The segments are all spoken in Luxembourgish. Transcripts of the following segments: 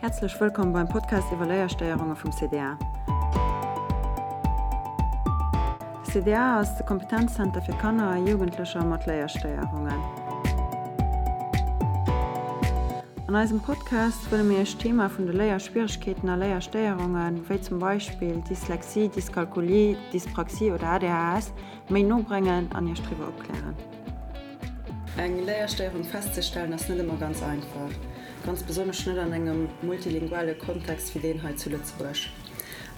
Häerzlech wëllkomm beim Podcast iwwer Léierstéierunge vum CDA. De CDA ass de Kompetenzzenter fir Kanner a Jugendlecher mat Léierstéierungen. An eisem Podcast wëlle mir Iech d'Thema vun de Léierschwieregkeeten a Léierstéierungen, wéi zum Beispill Dyslexie, Dyskalkulie, Dyspraxie oder ADHS, méi no bréngen an Iech driwwer opklären. Eng Léierstéierung festzestellen ass net ëmmer ganz einfach, ganz besonnesch net an engem multilinguale Kontext wéi deen hei zu Lëtzebuerg.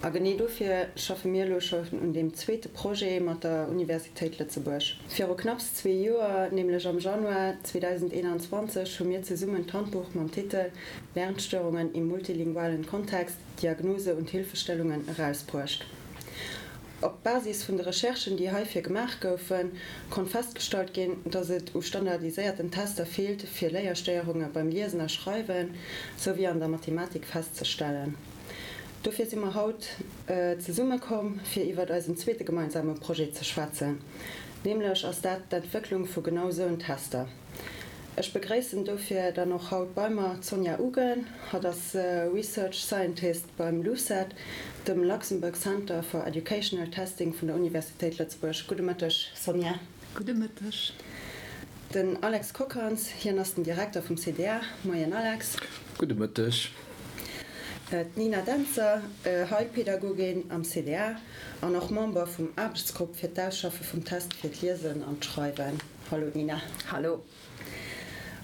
A genee dofir schaffe mir elo schonn un deem zweete Projet mat der Universitéit Lëtzebuerg. Viru knapps zwee Joer, nämlech am Januar 2021, hu mir zesummen d'Handbuch mam Titel Lernstörungen im multilingualen Kontext, Diagnose und Hilfestellungen erausbruecht. Op Basis vun de Recherchen, déi heifir gemaach goufen, konnt festgestallt ginn, dass et u standardiséierten Tester feelt, fir Léierstéierunge beim Liesen a Schreiwen souwéi an der Mathematik festzestellen. Dofir si mer haut zesumme komm, fir iwwert eisen zweete gemeinsame Projet ze schwätzen. Nämlech ass dat d'Entwécklung vu genau soun Tester. Ech begréissen dofir dann och haut bei mer d'Sonja Ugen. Hatt ass Research Scientist beim LUCET, dem Luxembourg Center for Educational Testing vun der Universitéit Lëtzebuerg. Gudde Mëtteg, Sonja. Gudde Mëtteg. Den Alex Kockhans, hien ass den Direkter vum CDA. Moien, Alex. Gudde Mëtteg. D'Nina Dentzer, Heilpädagogin am CDA an och Member vum Aarbechtsgrupp fir d'Ausschaffe vum Test fir d'Liesen an d'Schreiwen. Hallo Nina. Hallo.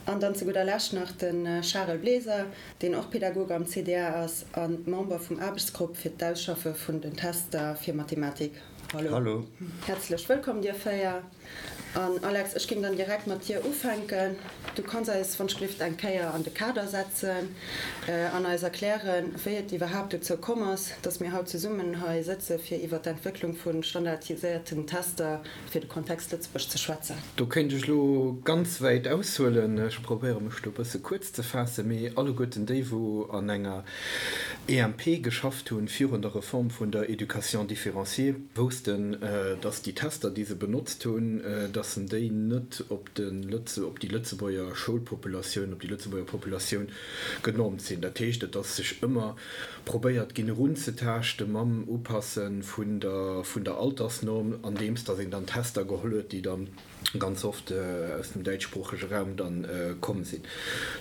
An dann zu gudder Lescht nach de Charel Bleser, deen och Pädagog am CDA ass a Member vum Aarbechtsgrupp fir d'Ausschaffe vun den Tester fir Mathematik. Hallo. Hallo. Häerzlech wëllkomm dir 4. An Alex, ech géing dann direkt mat dir ufänken. Du kanns eis wann ech gelift eng Kéier an de Kader setzen an eis erklären, wéi et iwwerhaapt dozou komm ass, dass mir haut zesummen hei sëtze fir iwwer d'Entwécklung vu standardiséierten Tester fir de Kontext Lëtzebuerg ze schwätzen. Do kéint ech elo ganz wäit aushuelen. Ech probéiere mech do e bësse kuerz ze faassen. Mee alleguerten déi, wou an enger EMP geschafft hunn virun der Reform vun der Éducation différenciée, woussten, dass déi Tester, déi se benotzt hunn, dass en déi net op de op déi Lëtzebuerger Schoulpopulatioun, op déi Lëtzebuerger Populatioun genormt sinn. Dat heescht, et ass sech ëmmer probéiert ginn erunzetaaschte mam Upasse vun der vun der Altersnorm, andeems datt een dann Tester geholl huet, déi dann ganz oft aus dem däitschsproochege Raum dann komm sinn.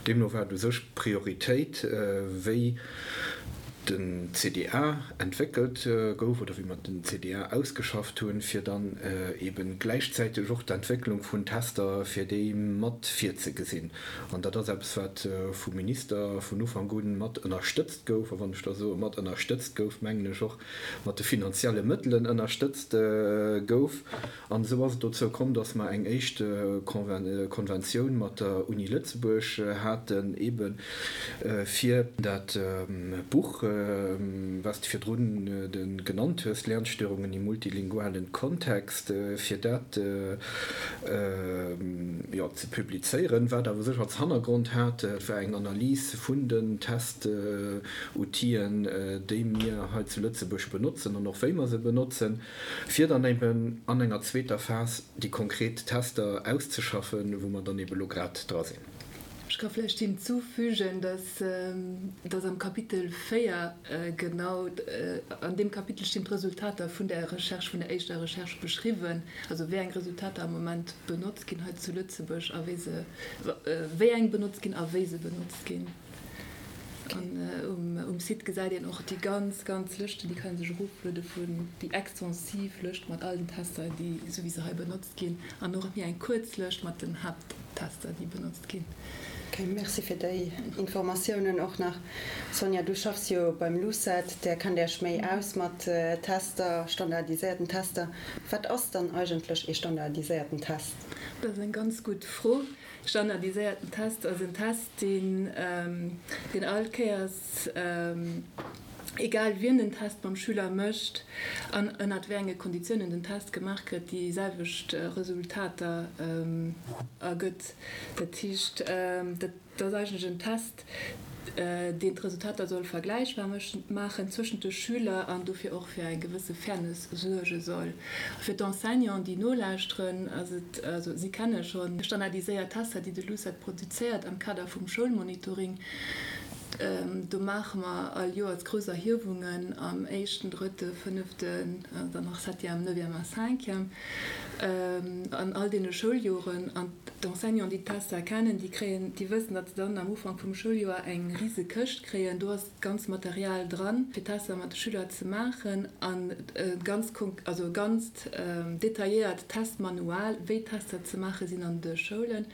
Deemno war et u sech d'Prioritéit, wéi den CDA entwéckelt gouf oder wéi mer den CDA ausgeschafft hunn, fir dann eebe gläichzäiteg och d'Entwécklung vun Tester fir déi mat virzegesinn. An dat ass eppes, wat vum Minister vun Ufank u mat ënnerstëtzt gouf. A wann ech da soe mat ënnerstëtzt gouf, mengen ech och mat de finanzielle Mëttelen ënnerstëtzt gouf. An esou ass et dozou komm, dass mer eng éischt Konventioun mat der Uni Lëtzebuerg haten, eebe fir dat Buch, wat s de virdrun genannt hues, Lernstörungen im multilingualen Kontext, fir dat, jo, ze publizéieren. Wat awer sech als Hannergrond hat, dat war eng Analys vun den Test-Outien, déi mir hei zu Lëtzebuerg benotzen an och wéi mer se benotzen, fir dann eben an enger zweeter Phas déi konkret Tester auszeschaffen, wou mer dann eben elo grad dra sinn. Ech ka vläicht hinzufügen, dass, dass am Kapitel 4 genau, an deem Kapitel stinn d'Resultater vun der Recherche, vun der éischter Recherche beschriwwen, also wéi eng Resultater am Moment benotzt ginn hei zu Lëtzebuerg a wéi se, wéi eng benotzt ginn a wéi se benotzt ginn. An um Site gesäit een och déi ganz, ganz Lëschten, déi kann ee sech erofluede vun, déi extensiv Lëscht mat all den Tester, déi esou wéi se hei benotzt ginn, an och méi eng kuerz Lëscht mat den Haapttester, déi benotzt ginn. Ok, merci fir déi Informatiounen och nach. Sonja, du schaffs jo beim LUCET, där kennt Iech méi aus mat Tester, standardiséierten Tester. Wat ass dann eigentlech ee standardiséierten Test? Dat ass eng ganz gutt Fro. Standardiséierten Test ass en Test, deen deen all Kéiers, egal wien den Test mam Schüler mécht an ënnert wéi enge Konditiounen den Test gemaach gëtt, déi selwecht Resultater ergëtt. Dat heescht, dat ass eigentlech en Test, deen d'Resultater soll vergläichbar maachen zwëschent de Schüler an dofir och fir eng gewësse Fairness suerge soll. Fir d'Enseignanten, déi nolauschteren, ass et, also si kenne scho standardiséiert Tester, déi de LUCET produzéiert am Kader vum Schoulmonitoring. Do maache mer all Joers grouss Erhiewungen am éischten, drëtte, fënneften, dann nach septième, neuvième a cinquième, an all deene Schouljoren. An d'Enseignanten, déi d'Tester kennen, déi kréien, déi wëssen, datt se dann am Ufank vum Schouljoer eng rise Këscht kréien. Do ass d'ganz Material dran, fir Tester mat de Schüler ze maachen an e ganz, also e ganzt detailléiert Testmanual, wéi Tester ze maache sinn an de Schoulen,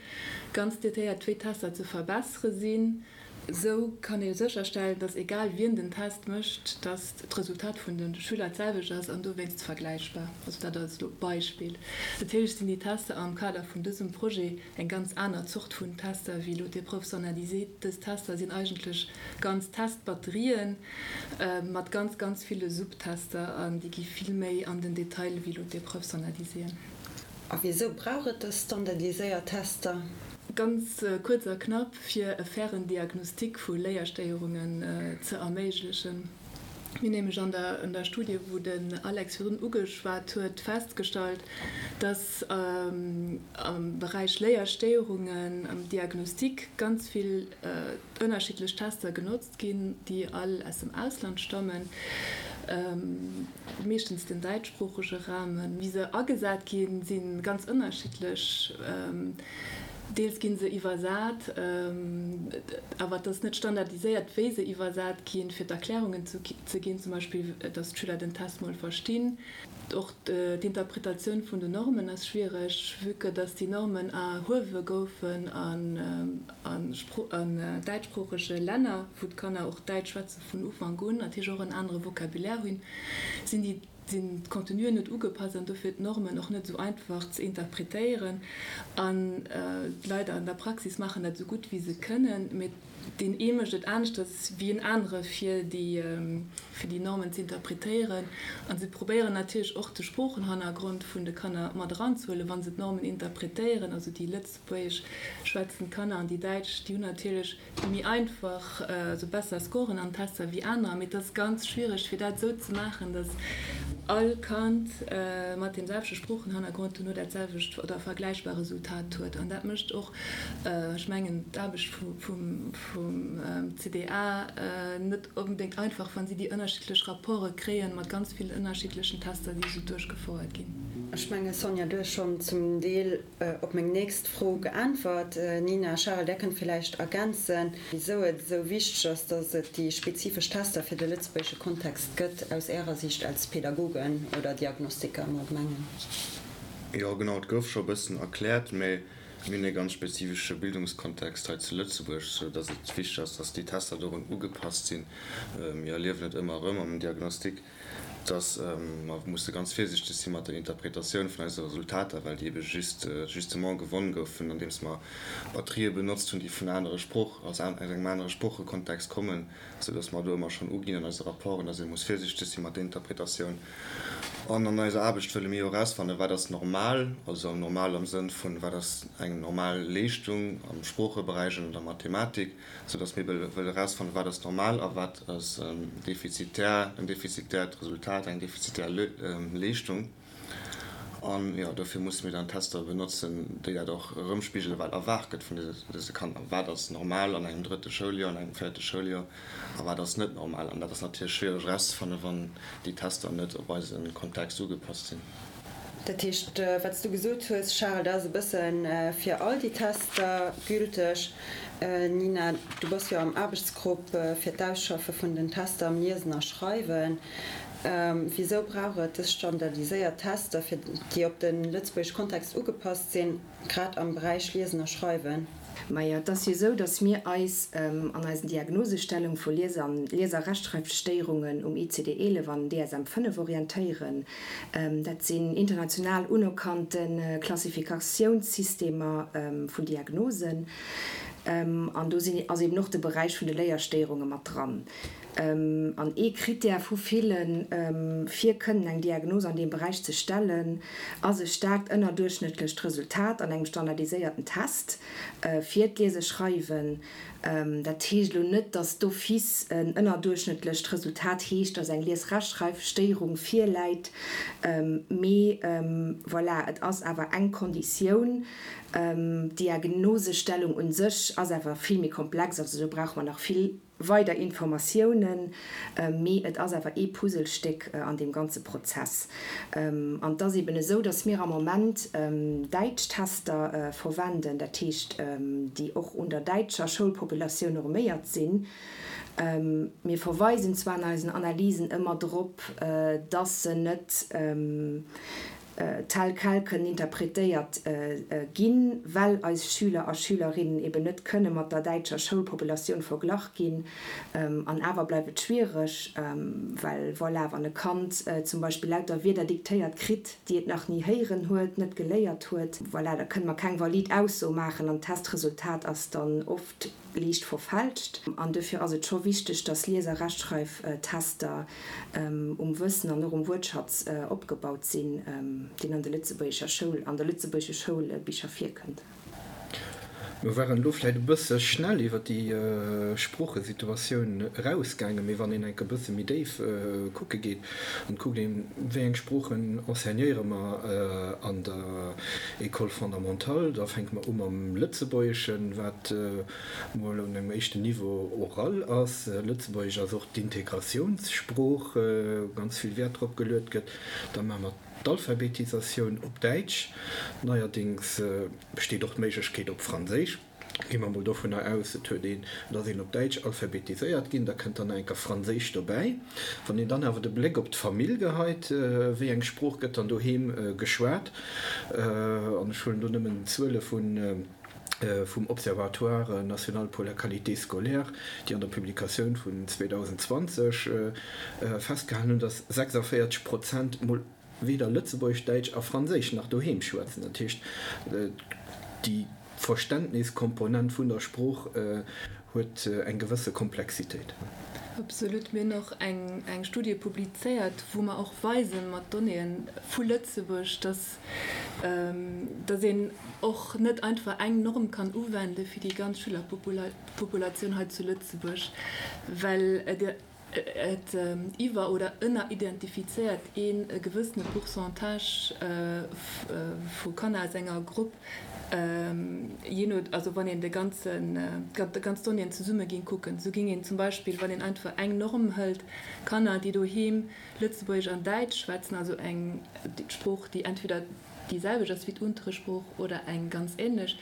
ganz detailléiert, wéi Tester ze verbessere sinn. Esou kann ee sécherstellen, dass egal wien den Test mécht, dass d'Resultat vun de Schüler d'selwecht ass an dowéinst vergläichbar. Also dat als elo Beispill. Natierlech sinn déi Tester am Kader vun dësem Projet eng ganz aner Zort vun Tester wéi elo d'Épreuves standardisées. Dës Tester sinn eigentlech ganz Testbatterien mat ganz, ganz ville Subtester an déi gi vill méi an den Detail wéi elo d'Épreuves standardisées. A wisou brauch et dës standardiséiert Tester? Ganz kuerz a knapp, fir e fairen Diagnostic vu Léierstéierungen ze erméiglechen. Mir hunn nämlech an der Studie, wou den Alex virdrun ugeschwat huet, festgestallt, dass am Beräich Léierstéierungen am Diagnostic ganz vill ënnerschiddlech Tester genotzt ginn, déi all aus dem Ausland stammen, meeschtens den däitschsproochege Raum. Wéi se agesat ginn, si ganz ënnerschiddlech. Deels gi se iwwersat, awer et ass net standardiséiert, wéi se iwwersat ginn, fir d'Erklärungen ze ginn, zum Beispill, datt d'Schüler den Test mol verstinn. Och d'Interpretatioun vun den Normen ass schwiereg, vue que datt déi Normen erhuewe goufen an däitschsproochege Länner, wou d'Kanner och Däitsch schwätze vun Ufank un, natierlech och en anere Vocabulaire hunn, sinn déi sinn d'Contenuen net ugepasst an dofir d'Normen och net esou einfach ze interpretéieren. An d'Leit an der Praxis maachen dat esou gutt wéi se kënnen, mee deen ee mécht et aneschters wéi en anere fir déi fir déi Normen ze interpretéieren. A se probéieren natierlech och de Sproochenhannergrond vun de Kanner mat eranzehuelen, wa se d'Normen interpretéieren. Also déi lëtzebuergesch schwätzend Kanner an déi däitsch, déi hunn natierlech méi einfach, also besser Scoren an Tester wéi anerer, mee et ass ganz schwiereg fir dat esou ze maachen, datt all Kand mat deem selwechte Sproochenhannergrond duerno dat selwecht oder vergläichbar Resultat huet. An dat mécht och, ech mengen, d'Aarbecht vum CDA net onbedéngt einfach, wa si déi ënnerschiddlech Rapporte kréien mat ganz villen ënnerschiddlechen Tester, déi esou duerchgefouert ginn. Ech menge Sonja, du hues schonn zum Deel op meng nächst Fro geäntwert. Nina, Charel, där kënnt villäicht ergänzen, wisou et esou wichteg ass, datt et déi spezifesch Tester fir de lëtzebuergesche Kontext gëtt, aus Ärer Siicht als Pädagogen oder Diagnostiker am Allgemengen. Jo, genau, et gouf scho e bëssen erkläert, mä mir hunn e ganz spezifesche Bildungskontext hei zu Lëtzebuerg, sou datt et wichteg ass, datt déi Tester dorun ugepasst sinn. Mir erliewen et ëmmer erëm am Diagnostic, dass mer musse ganz virsichteg si mat der Interpretatioun vun eise Resultater, well déi ebe just justement gewonn goufen, andeems mer Batterië benotzt hunn, déi vun anere Sprooch, aus engem anere Sproochekontext kommen, soudass mer do ëmmer schonn uginn an eise Rapporten, dass ee muss virsichteg si mat der Interpretatioun. An an eiser Aarbecht wëlle mir jo erausfannen, wat ass normal, also normal am Sënn vun, wat ass eng normal Leeschtung am Sproocheberäich an an der Mathematik, sou dass mir wëlle erausfannen, wat ass normal a wat ass defizitär, en defizitäert Resultat, eng defizitär Leeschtung. An, jo, dofir musse mir dann Tester benotzen, déi dat och erëmspigelen, wat erwaart gëtt vun dëse Kanner. Wat ass normal an engem drëtte Schouljoer, an engem véierte Schouljoer a wat ass net normal? An dat ass natierlech schwiereg erauszefannen, wann déi Tester net op eise Kontext ugepasst sinn. Dat heescht, wat s du gesot hues, Charel, dat ass e bësse fir all déi Tester gülteg. Nina, du bass jo am Aarbechtsgrupp fir d'Ausschaffe vun den Tester am Liesen a Schreiwen. Wisou brauch et dës standardiséiert Tester, fir déi op de lëtzebuergesche Kontext ugepasst sinn, grad am Beräich Liesen a Schreiwen? Majo, et ass jo esou, datt mir eis an eisen Diagnosestellung vu Lies an Lies a Rechtschreifstéierungen um ICD 11 an DSM 5 orientéieren. Dat sinn international unerkannte Klassifikatiounssystemer vun Diagnosen. An do sinn, ass eben och de Beräich vun de Léierstéierunge mat dran. An ee Krittär vu villen, fir kënnen eng Diagnos an deem Beräich ze stellen, ass e staarkt ënnerduerchschnëttlecht Resultat an engem standardiséierten Test fir d'Liese-Schreiwen. Dat heescht elo net, dass d'office en ënnerduerchschnëttlecht Resultat heescht, dass eng Lies-Rechtschreif-Stéierung virläit, mee voilà, et ass awer eng Konditioun. D'Diagnosestellung un sech ass awer vill méi komplex, also do brauche mer nach vill weider Informatiounen, mee et ass awer ee Puzzlestéck an deem ganze Prozess. An et ass eben esou, dass mir am Moment däitsch Tester verwenden, dat heescht, déi och un der däitscher Schoulpopulatioun norméiert sinn. Mir verweisen zwar an eisen Analysen ëmmer drop, dass se net tel quel kënnen interpretéiert ginn, well eis Schüler a Schülerinnen eben net kënne mat der däitscher Schoulpopulatioun verglach ginn. An awer bleift et schwiereg, well voilà, wann e Kand zum Beispill lauter Wierder diktéiert kritt, déi et nach ni héieren huet, net geléiert huet, voilà, da kënne mer keng valid Ausso maachen an d'Testresultat ass dann oft liicht verfälscht. An dofir ass et scho wichteg, dass Lies a Rechtschreiftester um Wëssen an och um Wuertschatz opgebaut sinn, deen an de lëtzebuergescher Schoul, an de lëtzebuergesche Schoulbicher virkënnt. Mir waren elo vläicht e bësse schnell iwwer déi Sproochesituatioun erausgaangen, mee wann een enk e bësse méi déif kucke geet an kuckt een, wéi eng Sproochen enseignéiere mer an der École fondamentale, da fänke mer u mam Lëtzebuergeschen, wat mol un engem éischten Niveau oral ass. Lëtzebuergesch ass och d'Integratiounssprooch, wou ganz vill Wäert drop geluet gëtt. Da maache mer d'Alphabetisatioun op Däitsch. Neierdéngs besteet och d'Méiglechkeet op Franséisch. Gi mer mol dovunner aus, et huet een, et ass een op Däitsch alphabetiséiert ginn, da kënnt dann nach eng Kéier Franséisch dobäi. Wann een dann awer de Bléck op d'Famill geheit, wéi eng Sprooch gëtt dann doheem geschwat, an ech huelen do nëmmen d'Zuele vun, vum Observatoire national pour la qualité scolaire, déi an der Publikatioun vun 2020 festgehalen hunn, datt 46 Prozent mol weder Lëtzebuergesch, Däitsch a Franséisch nach doheem schwätzen. Dat heescht, déi Verständniskomponent vun der Sprooch huet eng gewësse Komplexitéit. Absolut. Mir hunn och eng Studie publizéiert, wou mer och weisen mat Donnéeën vu Lëtzebuerg, dass dass een och net einfach eng Norm kann uwende fir déi ganz Schülerpopulatioun hei zu Lëtzebuerg, well et iwwer oder ënneridentifizéiert een e gewëssene Pourcentage vu Kanner aus enger Grupp, jee no, also wann een de ganzen, déi ganz Donnéeën zesumme géing kucken. Esou géing een zum Beispill, wann een einfach eng Norm hëlt, Kanner, déi doheem Lëtzebuergesch an Däitsch schwätzen, also eng Sprooch, déi entweder déi selwecht ass wéi d'Unteresprooch oder eng ganz änlech,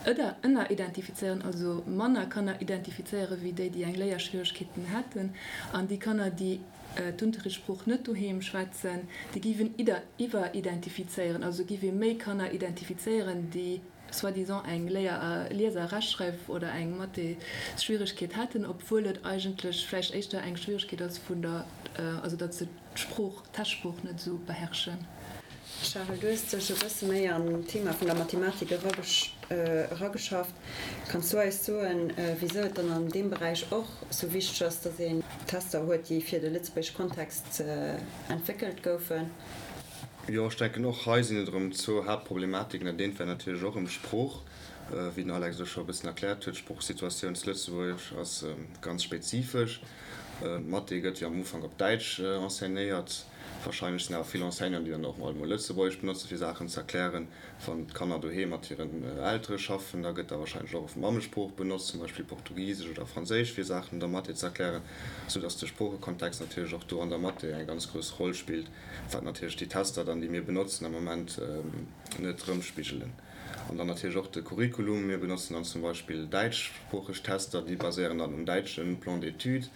ëder ënneridentifizéieren, also manner Kanner identifizéiere wéi déi, déi eng Léierschwieregkeeten hätten, an déi Kanner, déi d'Unterrichtssprooch net doheem schwätzen, déi géif een iwweridentifizéieren, also géif ee méi Kanner identifizéieren, déi soi-disant eng Léier-, Lies a Rechtschreif oder eng Mathésschwieregkeet hätten, obwuel et eigentlech vläicht éischter eng Schwieregkeet ass vun der, also datt se d'Sprooch, d'Testsprooch net esou beherrschen. Charel, du hues dech e bësse méi an d'Thema vun der Mathematik erageschafft. Kanns du eis soen, wisou et dann an deem Beräich och sou wichteg ass, datt een Tester huet, déi fir de lëtzebuergesche Kontext entwéckelt goufen? Jo, ech denken och hei sinn et erëm zwou Haaptproblematiken. Dat eent wär natierlech och erëm d'Sprooch, wéi den Alex elo scho e bëssen erkläert huet. D'Sproochsituatioun zu Lëtzebuerg ass ganz spezifesch. D'Mathé gëtt jo am Ufank op Däitsch enseignéiert. Warscheinlech sinn awer vill Enseignanten, déi dann och mol Lëtzebuergesch benotzen, fir Saachen ze erklären. Wann d'Kanner doheem mat hiren Eltere schaffen, da gëtt da warscheinlech och oft d'Mammesprooch benotzt, zum Beispill Portugisesch oder Franséisch, fir Saachen an der Mathé ze erklären, soudass de Sproochekontext natierlech och do an der Mathé eng ganz grouss Roll spillt, wat natierlech déi Tester dann, déi mir benotzen am Moment, net erëmspigelen. An dann natierlech och de Curriculum. Mir benotzen dann zum Beispill däitschsproocheg Tester, déi baséieren dann um däitsche Plan d'études,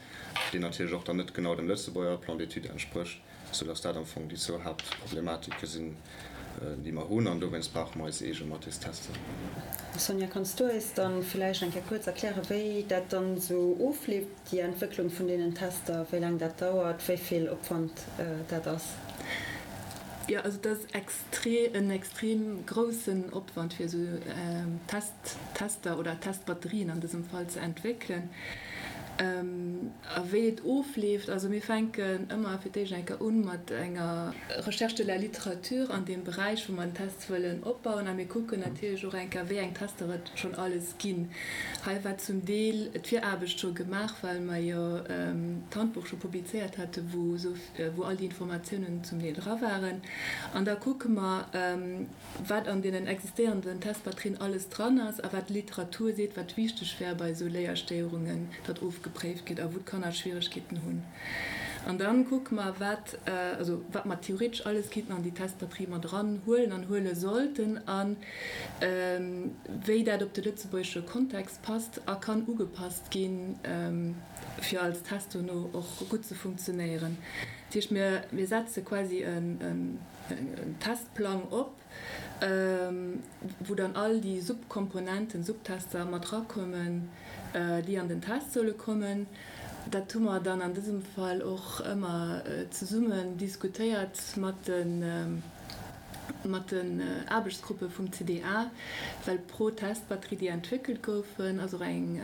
deen natierlech och dann net genau dem Lëtzebuerger Plan d'études entsprécht, soudass dat am Fong déi zwou Haaptproblematike sinn, déi mer hunn. An dowéinst brauche mer eis eege Mathestester. Sonja, kanns du eis dann villäicht eng Kéier kuerz erklären, wéi dat dann esou ofleeft, déi Entwécklung vun deenen Tester, wéi laang dat dauert, wéi vill Opwand dat ass? Jo, also et ass extre en extrem groussen Opwand, fir esou Test Tester oder Testbatterien an dësem Fall ze entwéckelen. A wéi et ofleeft, also mir fänken ëmmer fir d'éischt eng Kéier un mat enger Recherche de la littérature an deem Beräich, wou mer den Test wëllen opbauen. A mir kucken natierlech och eng Kéier, wéi eng Tester et schonn alles ginn. Hei war zum Deel d'Viraarbecht scho gemaach, well mer jo d'Handbuch scho publizéiert haten, wou wou all déi Informatiounen zum Deel dra waren. An da kucke mer, wat an deenen existéierenden Testbatterien alles dran ass a wat d'Literatur seet, wat wichteg wär bei esou Léierstéierungen, datt ofgepréift gëtt a wou d'Kanner Schwieregkeeten hunn. An da kucke mer, wat, also wat mer theoretesch alles kinnten an déi Testbatterie mat eran huelen an huele sollten a wéi dat op de lëtzebuergesche Kontext passt a kann ugepasst ginn, fir als Test dono och gutt ze funktionéieren. Dat heescht, mir setze quasi en Testplang op, wou dann all déi Subkomponenten, Subtester mat erakommen, déi an den Test solle kommen. Dat hu mer dann an dësem Fall och ëmmer zesummen diskutéiert mat de mat den Aarbechtsgruppe vum CDA, well pro Testbatterie, déi entwéckelt goufen, ass och eng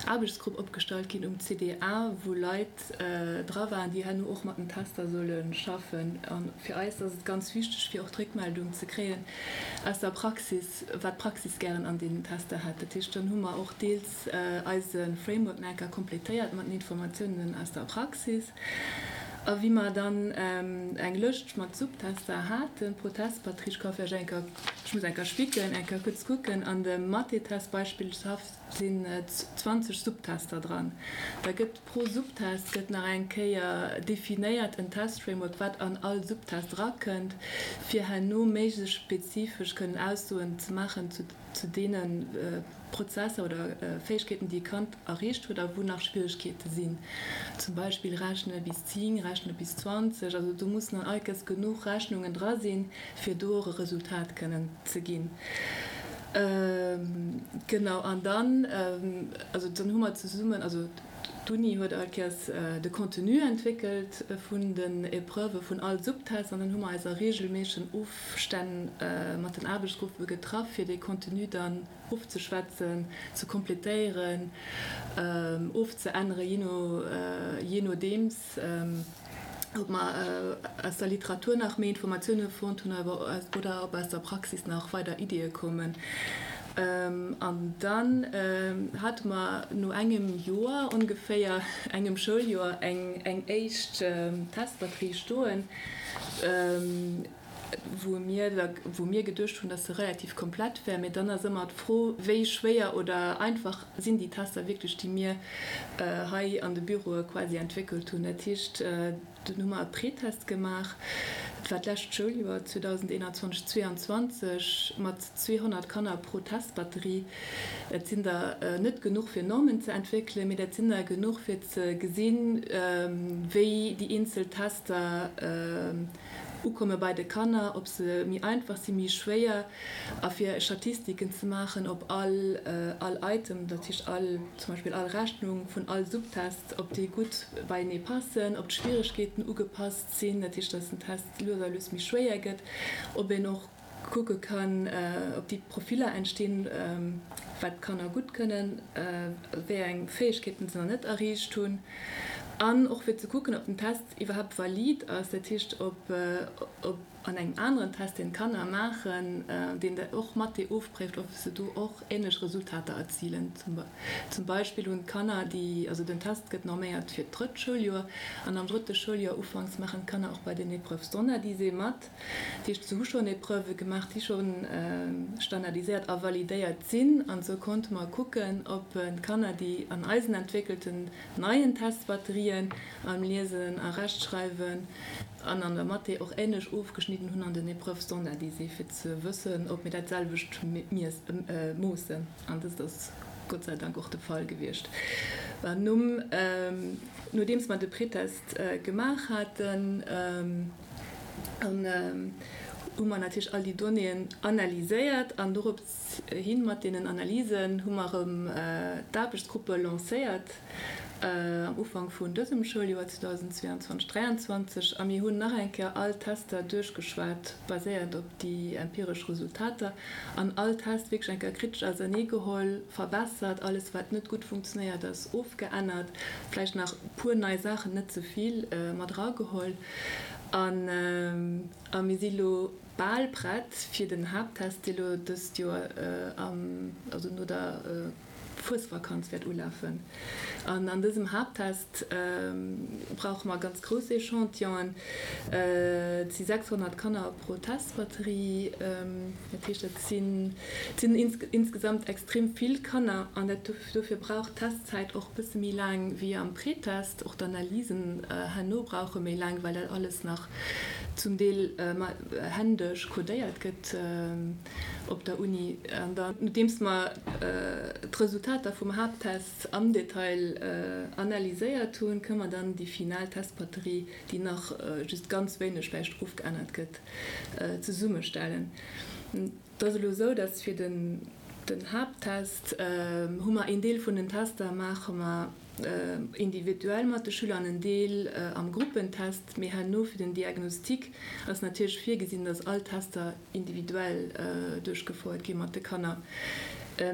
Aarbechtsgrupp opgestallt ginn um CDA, wou Leit dra waren, déi herno och mat den Tester solle schaffen. A fir eis ass et ganz wichteg, fir och d'Réckmeldung ze kréien aus der Praxis, wat d'Praxis gären an deenen Tester hätt. Dat heescht, dann hu mer och deels eise Framework nach eng Kéier kompletéiert mat den Informatiounen aus der Praxis. A wéi mer dann eng Lëscht mat Subtester haten pro Testbatterie, ech ka vläicht eng Kéier, ech muss eng Kéier spicken, eng Kéier kuerz kucken, an dem Mathetest beispillshaft sinn 20 Subtester dran. Da gëtt pro Subtest gëtt nach eng Kéier definéiert en Testframework, wat an all Subtest erakënnt, fir herno méiglechst spezifesch kënnen Aussoen ze maachen zu zu deene Prozesser oder Fäegkeeten, déi e Kand erreecht huet a wou nach Schwieregkeete sinn, zum Beispill Rechne bis 10, Rechne bis 20. Also do mussen an all Kes genuch Rechnungen dra sinn, fir do och e Resultat kënnen ze ginn. Genau, an dann, also dann hu mer zesummen, also d'Uni huet all Kéiers de Contenu entwéckelt vun den Épreuve vun all Subtest an dann hu mer eis a reegelméissegen Ofstänn mat den Aarbechtsgruppe getraff, fir dee Contenu dann ofzeschwätzen, ze kompletéieren, ofzeänneren, jee no, jee nodeems, ob mer aus der Literatur nach méi Informatioune fonnt hunn oder ob aus der Praxis nach weider Iddie koumen. An dann hate mer no engem Joer ongeféier, engem Schouljoer, eng éischt Testbatterie stoen, wou mir da, wou mir geduecht hunn, dass se relativ komplett wär. Mee dann ass ëmmer d'Fro, wéi schwéier oder einfach sinn déi Tester wierklech, déi mir hei an de Büroe quasi entwéckelt hunn. Dat heescht, dunn hu mer e Pretest gemaach, dat war d'lescht Schouljoer 2021, 22, mat 200 Kanner pro Testbatterie. Dat sinn der net genuch fir Normen ze entwéckelen, mee dat sinn der genuch fir ze gesinn, wéi déi eenzel Tester ukomme bei de Kanner, ob se méi einfach sinn, méi schwéier, a fir Statistiken ze maachen, ob all all Item, dat heescht all, zum Beispill all Rechnung vun all Subtest, ob déi gutt beienee passen, ob d'Schwieregkeeten ugepasst sinn, dat heescht, datt den Test lues a lues méi schwéier gëtt, ob een och kucke kann, ob déi Profiller entstinn, wat d'Kanner gutt kënnen, wéi eng Fäegkeeten se nach net erreecht hunn, an och fir ze kucken, ob den Test iwwerhaapt valid ass, dat heescht, ob an engem aneren Test, deen d'Kanner maachen, deen och Mathé ofpréift, ob se do och änlech Resultater erzilen. Zum Beispill hunn d'Kanner, déi, also den Test gëtt norméiert fir d'drëtt Schouljoer, an am drëtte Schouljoer ufanks maachen d'Kanner och bei den Épreuves standardisées mat. Dat heescht, se hu schonn Épreuve gemaach, déi scho standardiséiert a validéiert sinn. An esou konnte mer kucken, ob d'Kanner déi an eisen entwéckelten neien Testbatterien am Liesen a Rechtschreiwen an an der Mathé och änlech ofgeschnidden hunn an den Épreuves standardisées, fir ze wëssen, ob mir dat selwecht moossen. An dëst ass Gott sei Dank och de Fall gewiescht. Nom, nodeems mer de Pretest gemaach haten, An hu mer natierlech all déi Donnéeën analyséiert an dorops hi mat deenen Analysen hu mer erëm d'Aarbechtsgruppe lancéiert am Ufank vun dësem Schouljoer 2022, 23 a mir hunn nach eng Kéier all d'Tester duerchgeschwat, baséiernd op déi empiresch Resultater an all Test wierklech eng Kéier kritesch auserneegeholl, verbessert, alles wat net gutt funktionéiert ass ofgeännert, vläicht nach e puer nei Saachen, net ze vill, mat erageholl an a mir si lo bal prett fir den Haapttest, dee lo dëst Joer am, also no der Fuesvakanz wäert ulafen. An an dësem Haapttest brauche mer ganz grouss Echantillonen. Et si 600 Kanner pro Testbatterie. Dat heescht, dat sinn, et sinn insgesamt extrem vill Kanner. An dat, dofir brauch d'Testzäit och e bësse méi laang wéi am Pretest. Och d'Analysen herno brauche méi laang, well dat alles nach zum Deel händesch codéiert gëtt. Op der Uni. An dann, nodeems mer d'Resultater vum Haapttest am Detail analyséiert hunn, kënne mer dann déi final Testbatterie, déi nach just ganz wéineg vläicht ofgeännert gëtt, zesummestellen. Et ass elo esou, dass fir den Haapttest hu mer een Deel vun den Tester maache mer individuell mat de Schüler an en Deel am Gruppentest, mee herno fir den Diagnostic ass natierlech virgesinn, dass all Tester individuell duerchgefouert gi mat de Kanner.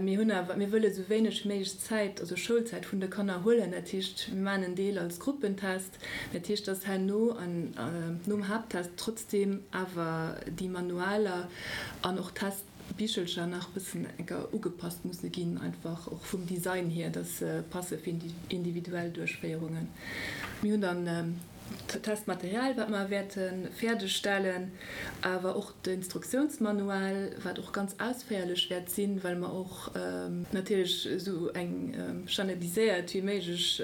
Mir hunn awer, mir wëlle sou wéineg wéi méiglech Zäit, also Schoulzäit vun de Kanner huelen. Dat heescht, mir maachen en Deel als Gruppentest. Dat heescht, dass herno an nom Haapttest trotzdeem awer déi Manualer an och Testbichelcher nach e bëssen enker ugepasst musse ginn, einfach och vum Design hier, dass se passe fir individuell Duerchféierungen. Mir hunn dann Testmaterial, wat mer wäerte fäerdeg stellen, awer och d'Instruktiounsmanual, wat och ganz ausféierlech wäert sinn, well mer och natierlech esou eng standardiséiert wéi méiglech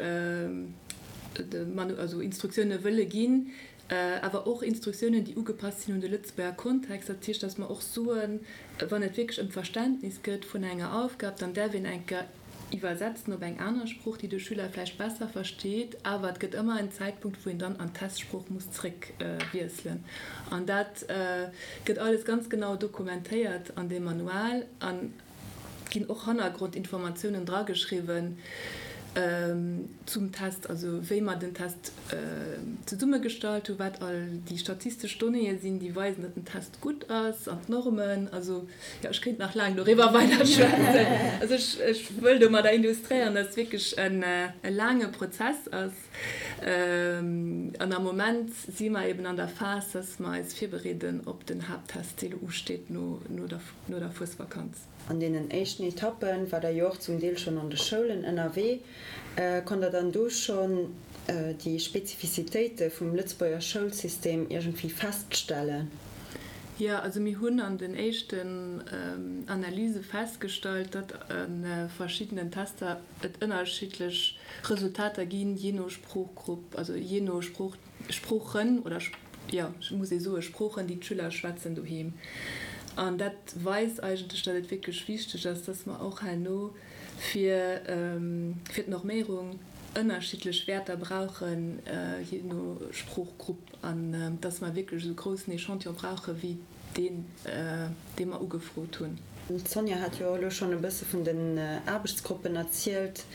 also Instruktioune wëlle ginn, awer och Instruktiounen, déi ugepasst sinn un de Lëtzebuerger Kontext. Dat heescht, datt mer och soen, wann et wierklech ëm d'Verständnis gëtt vun enger Aufgab, dann däerf een eng Kéier Iwwersetzen op eng aner Sprooch, déi de Schüler vläicht besser versteet, awer et gëtt ëmmer en Zäitpunkt, wou een dann an d'Testsprooch muss zréck wiesselen. An dat gëtt alles ganz genau dokumentéiert an deem Manual an et ginn och Hannergrondinformatiounen drageschriwwen zum Test, also wéi mer den Test zesummegestallt hunn, wat all déi statistesch Donnéeë sinn, déi weisen, datt den Test gutt ass an d'Normen. Also Jo, ech kéint nach laang doriwwer weider schwätzen. Also ech, ech wëll domadder illustréieren, dass et wierklech en, e laange Prozess ass. An am Moment si mer eben an der Phas, dass mer eis virbereeden op den Haapttest, dee lo usteet no, no der, no der Fuesvakanz. An deenen éischten Etappen war Der jo och zum Deel schonn an de Schoulen ënnerwee. Konnt Der dann do schonn déi Spezifizitéite vum Lëtzebuerger Schoulsystem iergendwéi feststellen? Jo, also mir hunn an den éischten Analyse festgestallt, datt a verschiddenen Tester et ënnerschiddlech Resultater ginn, jee no Sproochgrupp, also jee no Sprooch, Sproochen oder, jo, muss ee soe Sproochen, déi d'Schüler schwätzen doheem. An dat weist eigentlech, datt et wierklech wichteg ass, datt mer och herno fir fir d'Norméierung ënnerschiddlech Wäerter brauchen, jee no Sproochgrupp. An dass mer wierklech esou groussen Echantillon brauche wéi deen, dee mer ugefrot hunn. D'Sonja hat jo och elo schonn e bësse vun den Aarbechtsgruppen erzielt,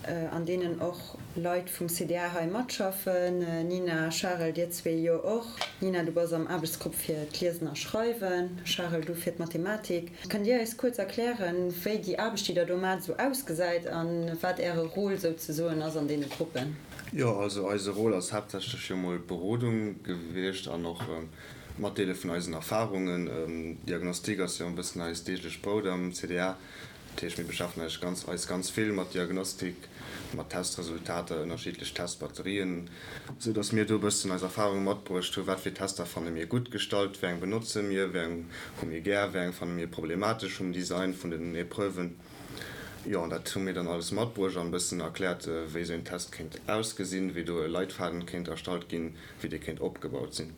an deenen och Leit vum CDA hei matschaffen. Nina, Charel, dir zwee jo och. Nina, du bass am Aarbechtsgrupp fir d'Liesen a Schreiwen, Charel, du fir d'Mathematik. Kënnt Dir eis kuerz erklären, wéi déi Aarbecht, déi Der do maacht, esou ausgesäit a wat Äre Rôle souzesoen ass an deene Gruppen? Jo, also eise Rôle ass haaptsächlech jo mol d'Berodung gewiescht an och d'Matdeele vun eisen Erfahrungen. Diagnostik ass jo e bëssen eist deeglecht Brout am CDA. Dat heescht, mir beschäftegen eis ganz, eis ganz vill mat Diagnostik, mat Testresultater, ënnerschiddlech Testbatterien, esou datt mir do e bëssen eis Erfahrunge matbruecht hu wat fir Tester fanne mir gutt gestallt, wéi eng benotze mir, wéi eng hu mir gär, wéi eng fanne mir problematesch vum Design vun den Epreuven. Jo, an dat hu mir dann alles matbruecht an e bëssen erkläert, wéi esou een Test kéint ausgesinn, wéi do e Leitfaden kéint erstallt ginn, wéi dee kéint opgebaut sinn.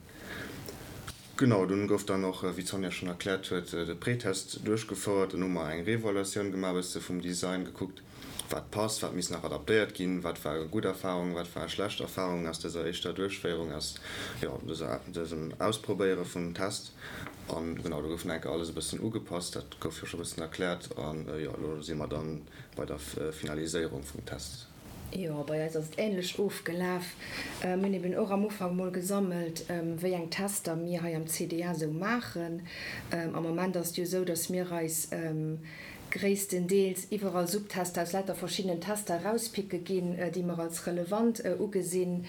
Genau, dunn gouf dann och, wéi d'Sonja schonn erkläert huet, de Pretest duerchgefouert. Dann hu mer eng Reevaluatioun gemaach, e bësse vum Design gekuckt, wat passt, wat misst nach adaptéiert ginn, wat ware gutt Erfarungen, wat ware schlecht Erfarungen aus dëser éischter Duerchféierung, aus, jo, dëser, dësem Ausprobéiere vum Test. An genau, do gouf nach eng Kéier alles e bëssen ugepasst, dat gouf jo scho e bëssen erkläert. An, jo, elo si mer dann bei der Finaliséierung vum Test. Jo, bei eis ass et änlech ofgelaf. Mir hunn eben och am Ufank mol gesammelt, wéi eng Tester mir hei am CDA esou maachen. Am Moment ass et jo esou, dass mir eis gréisstendeels iwwerall Subtester aus lauter verschiddenen Tester erauspicke ginn, déi mer als relevant ugesinn.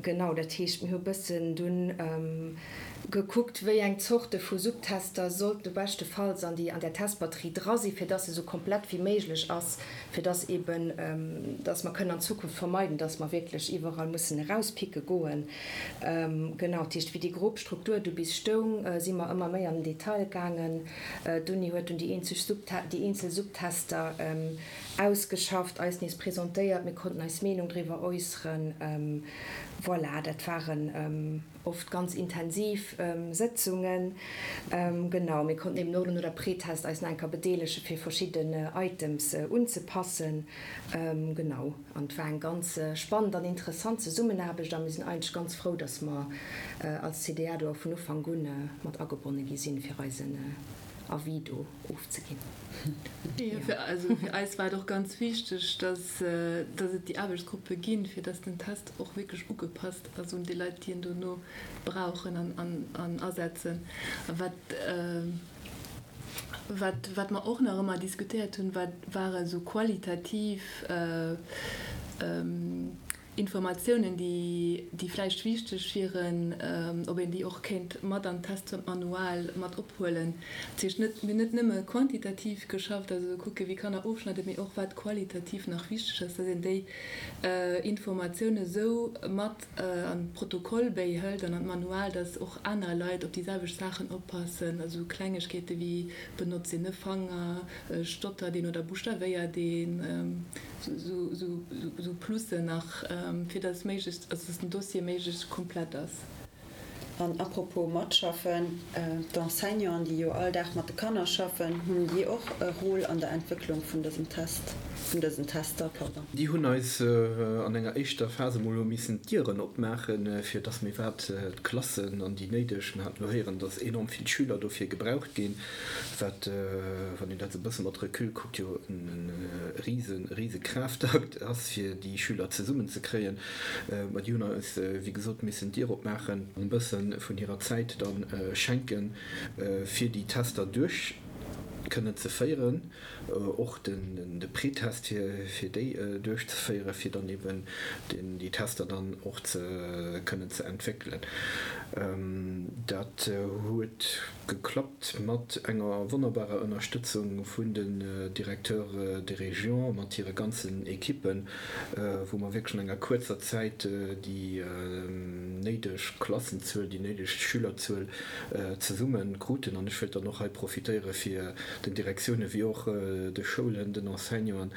Genau, dat heescht, mir hu bëssen dunn gekuckt, wéi eng Zorte vu Subtester sollten beschtefalls an déi an där Testbatterie dra sinn, fir dass se esou komplett wéi méiglech ass, fir dass eben, dass mer kënnen an Zukunft vermeiden, dass mer wierklech iwwerall mussen erauspicke goen. Genau, dat heescht, wéi déi grob Struktur du bis stoung, si mer ëmmer méi an den Detail gaangen. D'Uni huet dunn déi eenzeg Subte déi eenzel Subtester ausgeschafft, eis nees presentéiert, mir konnten eis Meenung driwwer äusseren. Voilà, dat waren oft ganz intensiv Sëtzungen. Genau, mir konnten eben och elo no der Pretest eis nach eng Kéier bedeelegen, fir verschidden Items unzepassen. Genau, an et war eng ganz spannend an interessant Zesummenaarbecht a mir sinn eigentlech ganz frou, dass mer als CDA do och vun Ufank un mat agebonne gi sinn, fir eisen Avis do ofzeginn. Jo, also fir eis war et och ganz wichteg, dass dass et déi Aarbechtsgruppe ginn, fir dass den Test och wierklech ugepasst ass un déi Leit, déi en dono brauchen an asetzen. A wat wat wat mer och nach ëmmer diskutéiert hunn, wat ware sou qualitativ Informatiounen, déi vläicht wichteg wieren, ob een déi och kéint mat an d'Testmanual mat ophuelen. Dat heescht net, mir hunn net nëmme quantitativ geschafft, also kucke wéi Kanner ofschneiden, mee och wat qualitativ nach wichteg ass, dass een déi Informatioune sou mat an d'Protokoll béihëlt an an d'Manual, dass och aner Leit op déi selwecht Saachen oppassen, also Klengegkeete wéi benotzt een e Fanger, stottert een oder buschtawéiert een. Sou Plussen nach, fir dass méiglechst, also dass den Dossier méiglechst komplett ass. An apropos matschaffen, d'Enseignanten, déi jo all Dag mat de Kanner schaffen, hunn déi och e Rôle an der Entwécklung vun dësem Test, vun dësen Tester, pardon? Déi hunn eis an enger éischter Phas emol hu missen d'Dieren opmaachen, fir dass mir iwwerhaapt d'Klassen an déi néideg, mir haten elo héieren, dass enorm vill Schüler dofir gebraucht ginn, Wat, wann een dat esou e bësse mat Recul kuckt, jo e rise, rise Kraaftakt ass, fir déi Schüler zesummenzekréien. Mä déi hunn eis, wéi gesot, missen d'Dier opmaachen, e bësse vun hirer Zäit da schenken, fir déi Tester duerch kënnen ze féieren. och de Pretest fir déi duerchzeféieren, fir dann eben déi Tester dann och ze kënnen ze entwéckelen. Dat huet geklappt mat enger wonnerbarer Ënnerstëtzung vun den Directeurs de région mat hire ganzen Ekippen, wou mer wierklech an enger kuerzer Zäit déi néideg Klassenzuel, déi néideg Schülerzuel zesumme kruten. An ech wëilt dann och hei profitéiere fir den Direktioune wéi och de Schoulen, den Enseignanten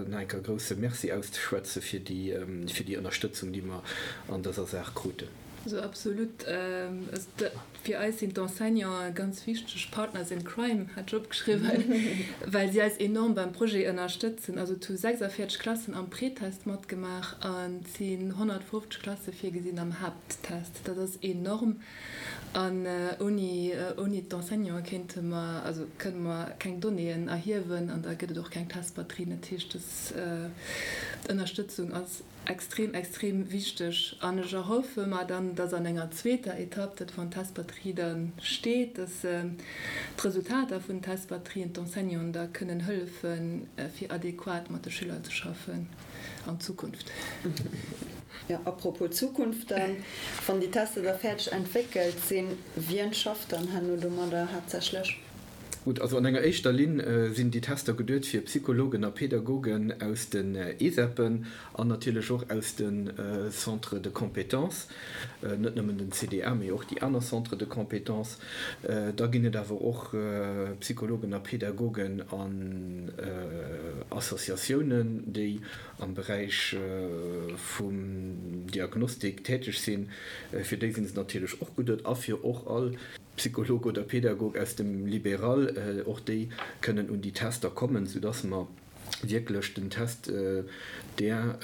nach eng Kéier e grousse Merci auszeschwätze fir déi fir déi Ënnerstëtzung, déi mer an dëser Saach kruten. Also absolut. Fir eis sinn d'Enseignanten ganz wichteg Partners in crime, hat ech opgeschriwwen, well si eis enorm beim Projet ënnerstëtzen. Also et hu 46 Klassen am Pretest matgemaach an et sinn 150 Klasse virgesinn am Haapttest. Dat ass enorm. An ouni, ouni d'Enseignanten kéinte mer, also kënne mer keng Donnéeën erhiewen an da gëtt et och keng Testbatterien. Dat heescht, dës Ënnerstëtzung ass extrem, extrem wichteg. An ech erhoffe mer dann, dass an enger zweeter Etapp, dat wann d'Testbatterie da steet, dass d'Resultater vun den Testbatterien d'Enseignanten da kënnen hëllefen, fir adequat mat de Schüler ze schaffen. An Zukunft. Jo, apropos Zukunft dann, wann déi Tester da fäerdeg entwéckelt sinn, wien schafft dann herno domadder haaptsächlech? Gutt, also an enger éischter Linn sinn déi Tester geduet fir Psychologen a Pädagogen aus den ESEPen an natierlech och aus de Centres de compétences, net nëmmen den CDA, mee och déi aner Centres de compétences. Da ginn et awer och Psychologen a Pädagogen an. Associatiounen, déi am Beräich vum Diagnostik täteg sinn, fir déi sinn se natierlech och geduet a fir och all Psycholog oder Pedagog aus dem Libéral, och déi kënnen un déi Tester kommen, soudass mer wierklech den Test där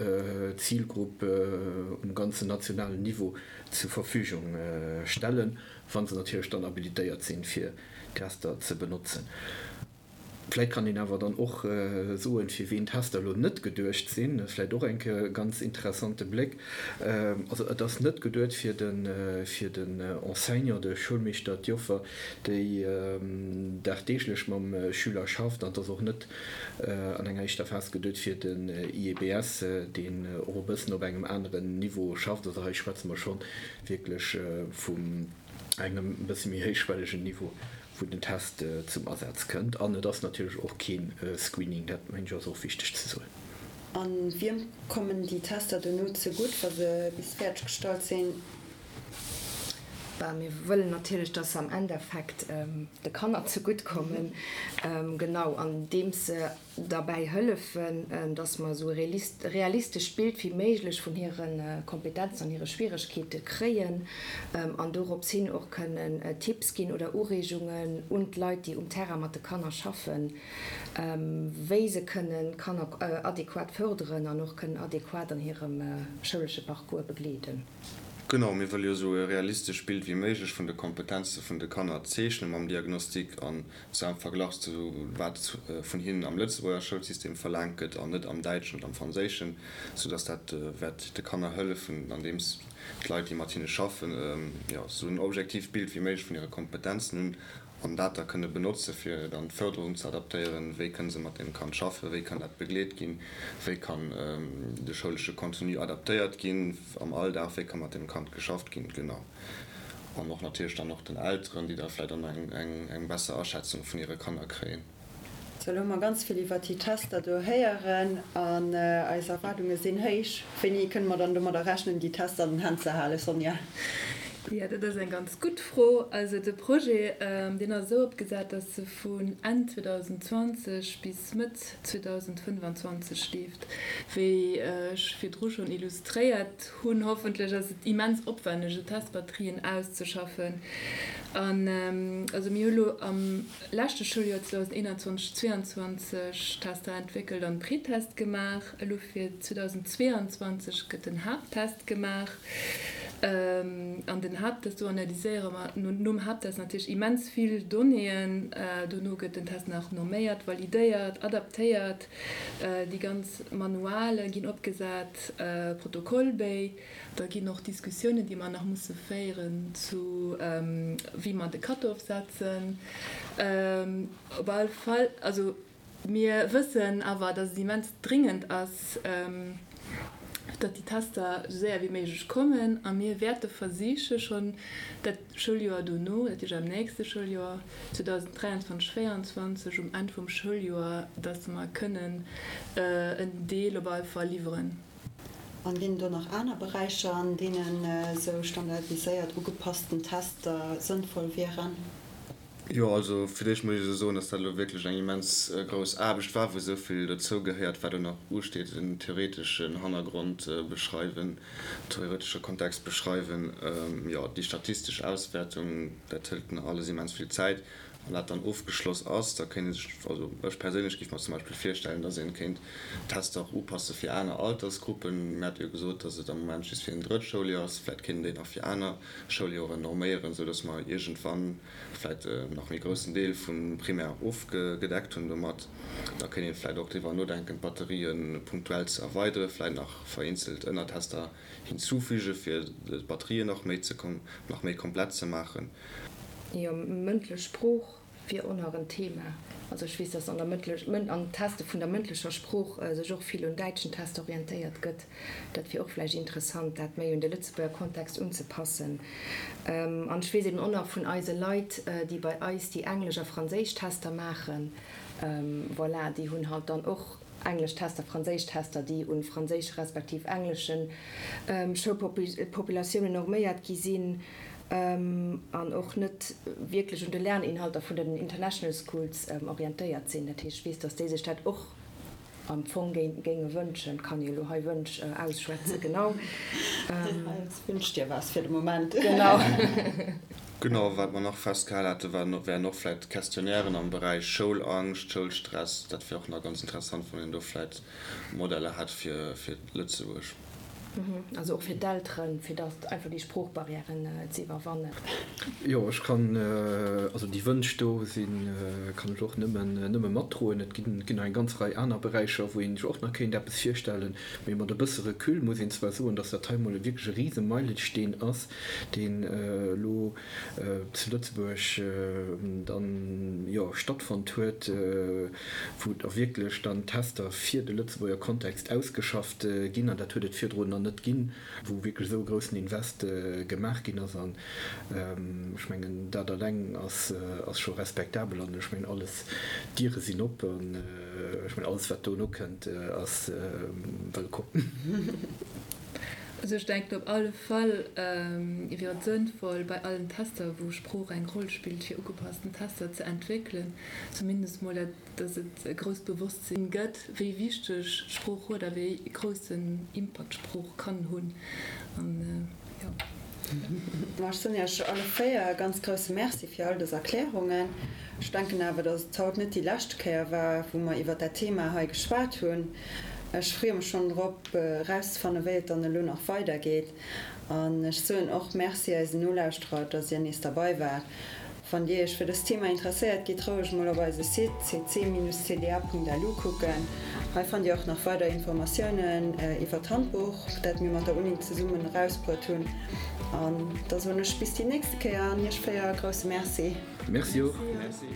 Zilgrupp um ganzen nationalen Niveau zur Verfügung stellen, wa se natierlech dann habilitéiert sinn, fir Tester ze benotzen. Vläit kann een awer dann och soen, fir ween d'Tester elo net geduecht sinn. Dat ass vläit och eng Kéier e ganz interessante Bléck. Also et ass net geduet fir de fir den Enseignant, de Schoulmeeschter, d'Joffer, déi dagdeeglech mam Schüler schafft. An et ass och net an enger éischter Phas geduet fir den IEBS, deen och e bëssen op engem aneren Niveau schafft. Also hei schwätze mer scho wierklech vum engem e bësse méi héichschwellegen Niveau, wou den Test zum Asaz kënnt. An et ass natierlech och kee Screening, dat mengen ech ass och wichteg ze soen. A wiem kommen déi Tester dono zegutt, wa se bis fäerdeg gestallt sinn? Bah, mir wëllen natierlech, dass se am Endeffekt de Kanner zegutt kommen, genau andeems se derbäi hëllefen, dass mer esou e realistescht Bild wéi méiglech vun hire Kompetenzen an hire Schwieregkeete kréien an dorops hin och kënnen Tipps ginn oder Ureegungen un d'Leit, déi um Terrain mat de Kanner schaffen, wéi se kënnen d'Kanner adequat fërderen an och kënnen adequat an hirem schoulesche Parcours begleeden. Genau, mir wëlle jo esou e realistescht Bild wéi méiglech vun de Kompetenze vun de Kanner zeechne mam Diagnostic an zwar am Verglach zu wat vun hinnen am Lëtzebuerger Schoulsystem verlaangt gëtt an net am Däitschen oder am Franséischen, soudass dat wäert de Kanner hëllefen, andeems d'Leit, déi mat hinne schaffen, jo, esou en objektiivt Bild wéi méiglech vun hire Kompetenzen hunn an dat da kënne benotze fir dann d'Fërderung ze adaptéieren, wéi kënne se mat deem Kand schaffen, wéi kann dat begleet ginn, wéi kann de schoulesche Contenu adaptéiert ginn am Alldag, wéi ka mat deem Kand geschafft ginn, genau. An och natierlech dann och den Elteren, déi da vläicht dann eng besser Aschätzung vun hire Kanner kréien. Sou, elo hu mer ganz vill iwwert déi Tester do héieren an eis Erwaardunge sinn héich. Wéini kënne mer dann domadder rechnen, déi Tester an den Hänn ze halen, Sonja? Jo, dat ass eng ganz gutt Fro. Also de Projet, deen ass esou opgesat, datt e vun Enn 2020 bis Mëtt 2025 leeft. Wéi ech virdru schonn illustréiert hunn, hoffentlech, ass et immens opwänneg, esou Testbatterien auszeschaffen. An also mir hu lo am leschte Schouljoer 2021, 22 Tester entwéckelt an Pretest gemaach. Elo fir 2022 gëtt den Haapttest gemaach. An den Haapttest, do analyséiere mer nom Haapttest natierlech immens vill Donnéeën. Dono gëtt den Test nach norméiert, validéiert, adaptéiert. Déi ganz Manuale ginn opgesat, Protokollbéi. Da ginn och Diskussiounen, déi mer nach musse féieren zu wéi mer de Cut-off setzen. Op alle Fall, also mir wëssen awer, datt et immens dringend ass, datt déi Tester esou séier wéi méiglech kommen. A mir wäerte versiche schonn dat Schouljoer dono, dat heescht am nächste Schouljoer 2023, 2024, um Enn vum Schouljoer, datt mer kënnen en Deel op alle Fall liwweren. An ginn et do nach aner Beräicher, an deenen esou standardiséiert ugepassten Tester sënnvoll wieren? Jo, also fir d'éischt muss ech esou soen, dass dat elo wierklech eng immens grouss Aarbecht war, wou esou vill dozou gehéiert, wat elo nach usteet, den theoreteschen Hannergrond beschreiwen, theoretesche Kontext beschreiwen, jo, déi statistesch Auswäertung, dat hëlt nach alles immens vill Zäit. Wann dat dann ofgeschloss ass, da kéint ee sech, also ech perséinlech géif mer zum Beispill virstellen, dass een kéint d'Tester och upasse fir aner Altersgruppen. Mir hate jo gesot, dass et am Moment just fir en drëtt Schouljoer ass. Vläicht kéint een déi nach fir aner Schouljoren norméieren, esou dass mer iergendwann vläicht en nach méi groussen Deel vum Primaire ofgedeckt hunn domat. Da kéint een vläicht och driwwer nodenken, d'Batterië punktuell ze erweideren, vläicht nach vereenzelt Ënnertester hinzufügen, fir d'Batterien nach méi ze nach méi komplett ze maachen. Jo, mëndlech Sprooch wier och nach en Thema. Also ech weess, dass an der mëndlech, an Teste vun der mëndlecher Sprooch sech och vill un däitschen Tester orientéiert gëtt. Dat wier och vläicht interessant, dat méi un de Lëtzebuerger Kontext unzepassen. An ech weess eben och nach vun eise Leit, déi bei eis déi englesch a franséisch Tester maachen, voilà, déi hunn halt dann och englesch Tester, franséisch Tester, déi un franséische respektiv englesche Schoulpopulatiounen norméiert gi sinn an och net wierklech un de Lerninhalter vun den International Schools orientéiert sinn. Dat heescht, ech weess, datt déi sech dat och. am Fong géinge wënschen. Kann jo elo hei Wënsch ausschwätzen, genau. Wünsch dir was fir de Moment. Genau. Genau, wat mer nach festgehal hate wären och vläicht Questionnairen am Beräich Schoulangscht, Schoulstress. Dat wär och nach ganz interessant, wann een do vläicht Modeller hätt fir Lëtzebuerg. Also och fir d'Elteren, fir datt einfach déi Sproochbarrièren ze iwwerwannen. Jo, ech kann, also déi Wënsch do sinn, kann ech och nëmmen, nëmme matdroen. Et ginn, ginn nach eng ganz Rei aner Beräicher, wou een sech och nach kéint eppes virstellen. Mee mat e bësse Recul muss een zwar soen, datt dat hei emol wierklech e rise Meilesteen ass, deen elo zu Lëtzebuerg dann, jo, stattfonnt huet, wou da wierklech dann Tester fir de Lëtzebuerger Kontext ausgeschafft ginn, an dat huet et virdrun nach net ginn, wou wierklech esou e groussen Invest gemaach ginn ass. An ech mengen, dat eleng ass scho respektabel. An ech mengen, alles, d'Diere sinn op an ech mengen, alles, wat dono kënnt, ass wëllkomm. Also ech denken op alle Fall wier et sënnvoll, bei allen Tester, wou Sprooch eng Roll spillt, fir ugepassten Tester ze entwéckelen, zumindest mol dat, dass et e grousst Bewosstsinn gëtt, wéi wichteg Sprooch huet a wéi groussen Impakt Sprooch kann hunn. An jo. Ma ech soen Iech alle 4 e ganz grousse Merci fir all dës Erklärungen. Ech denken awer, dass et haut net déi lescht Kéier war, wou mer iwwert dat Thema hei geschwat hunn. Ech freeë mech schonn drop, erauszefannen, wéi et dann elo nach weidergeet. An ech soen och Merci eisen Nolauschterer, dass Dir nees derbei waart. Wann Dir Iech fir dëst Thema interesséiert, gitt roueg mol op eise Site cc-cda.lu kucken. Hei fannt Dir och nach weider Informatiounen iwwer d'Handbuch, dat mir mat der Uni zesummen erausbruet hunn. An da soen ech bis déi nächste Kéier an Iech 4 e grousse Merci. Merci och. Merci.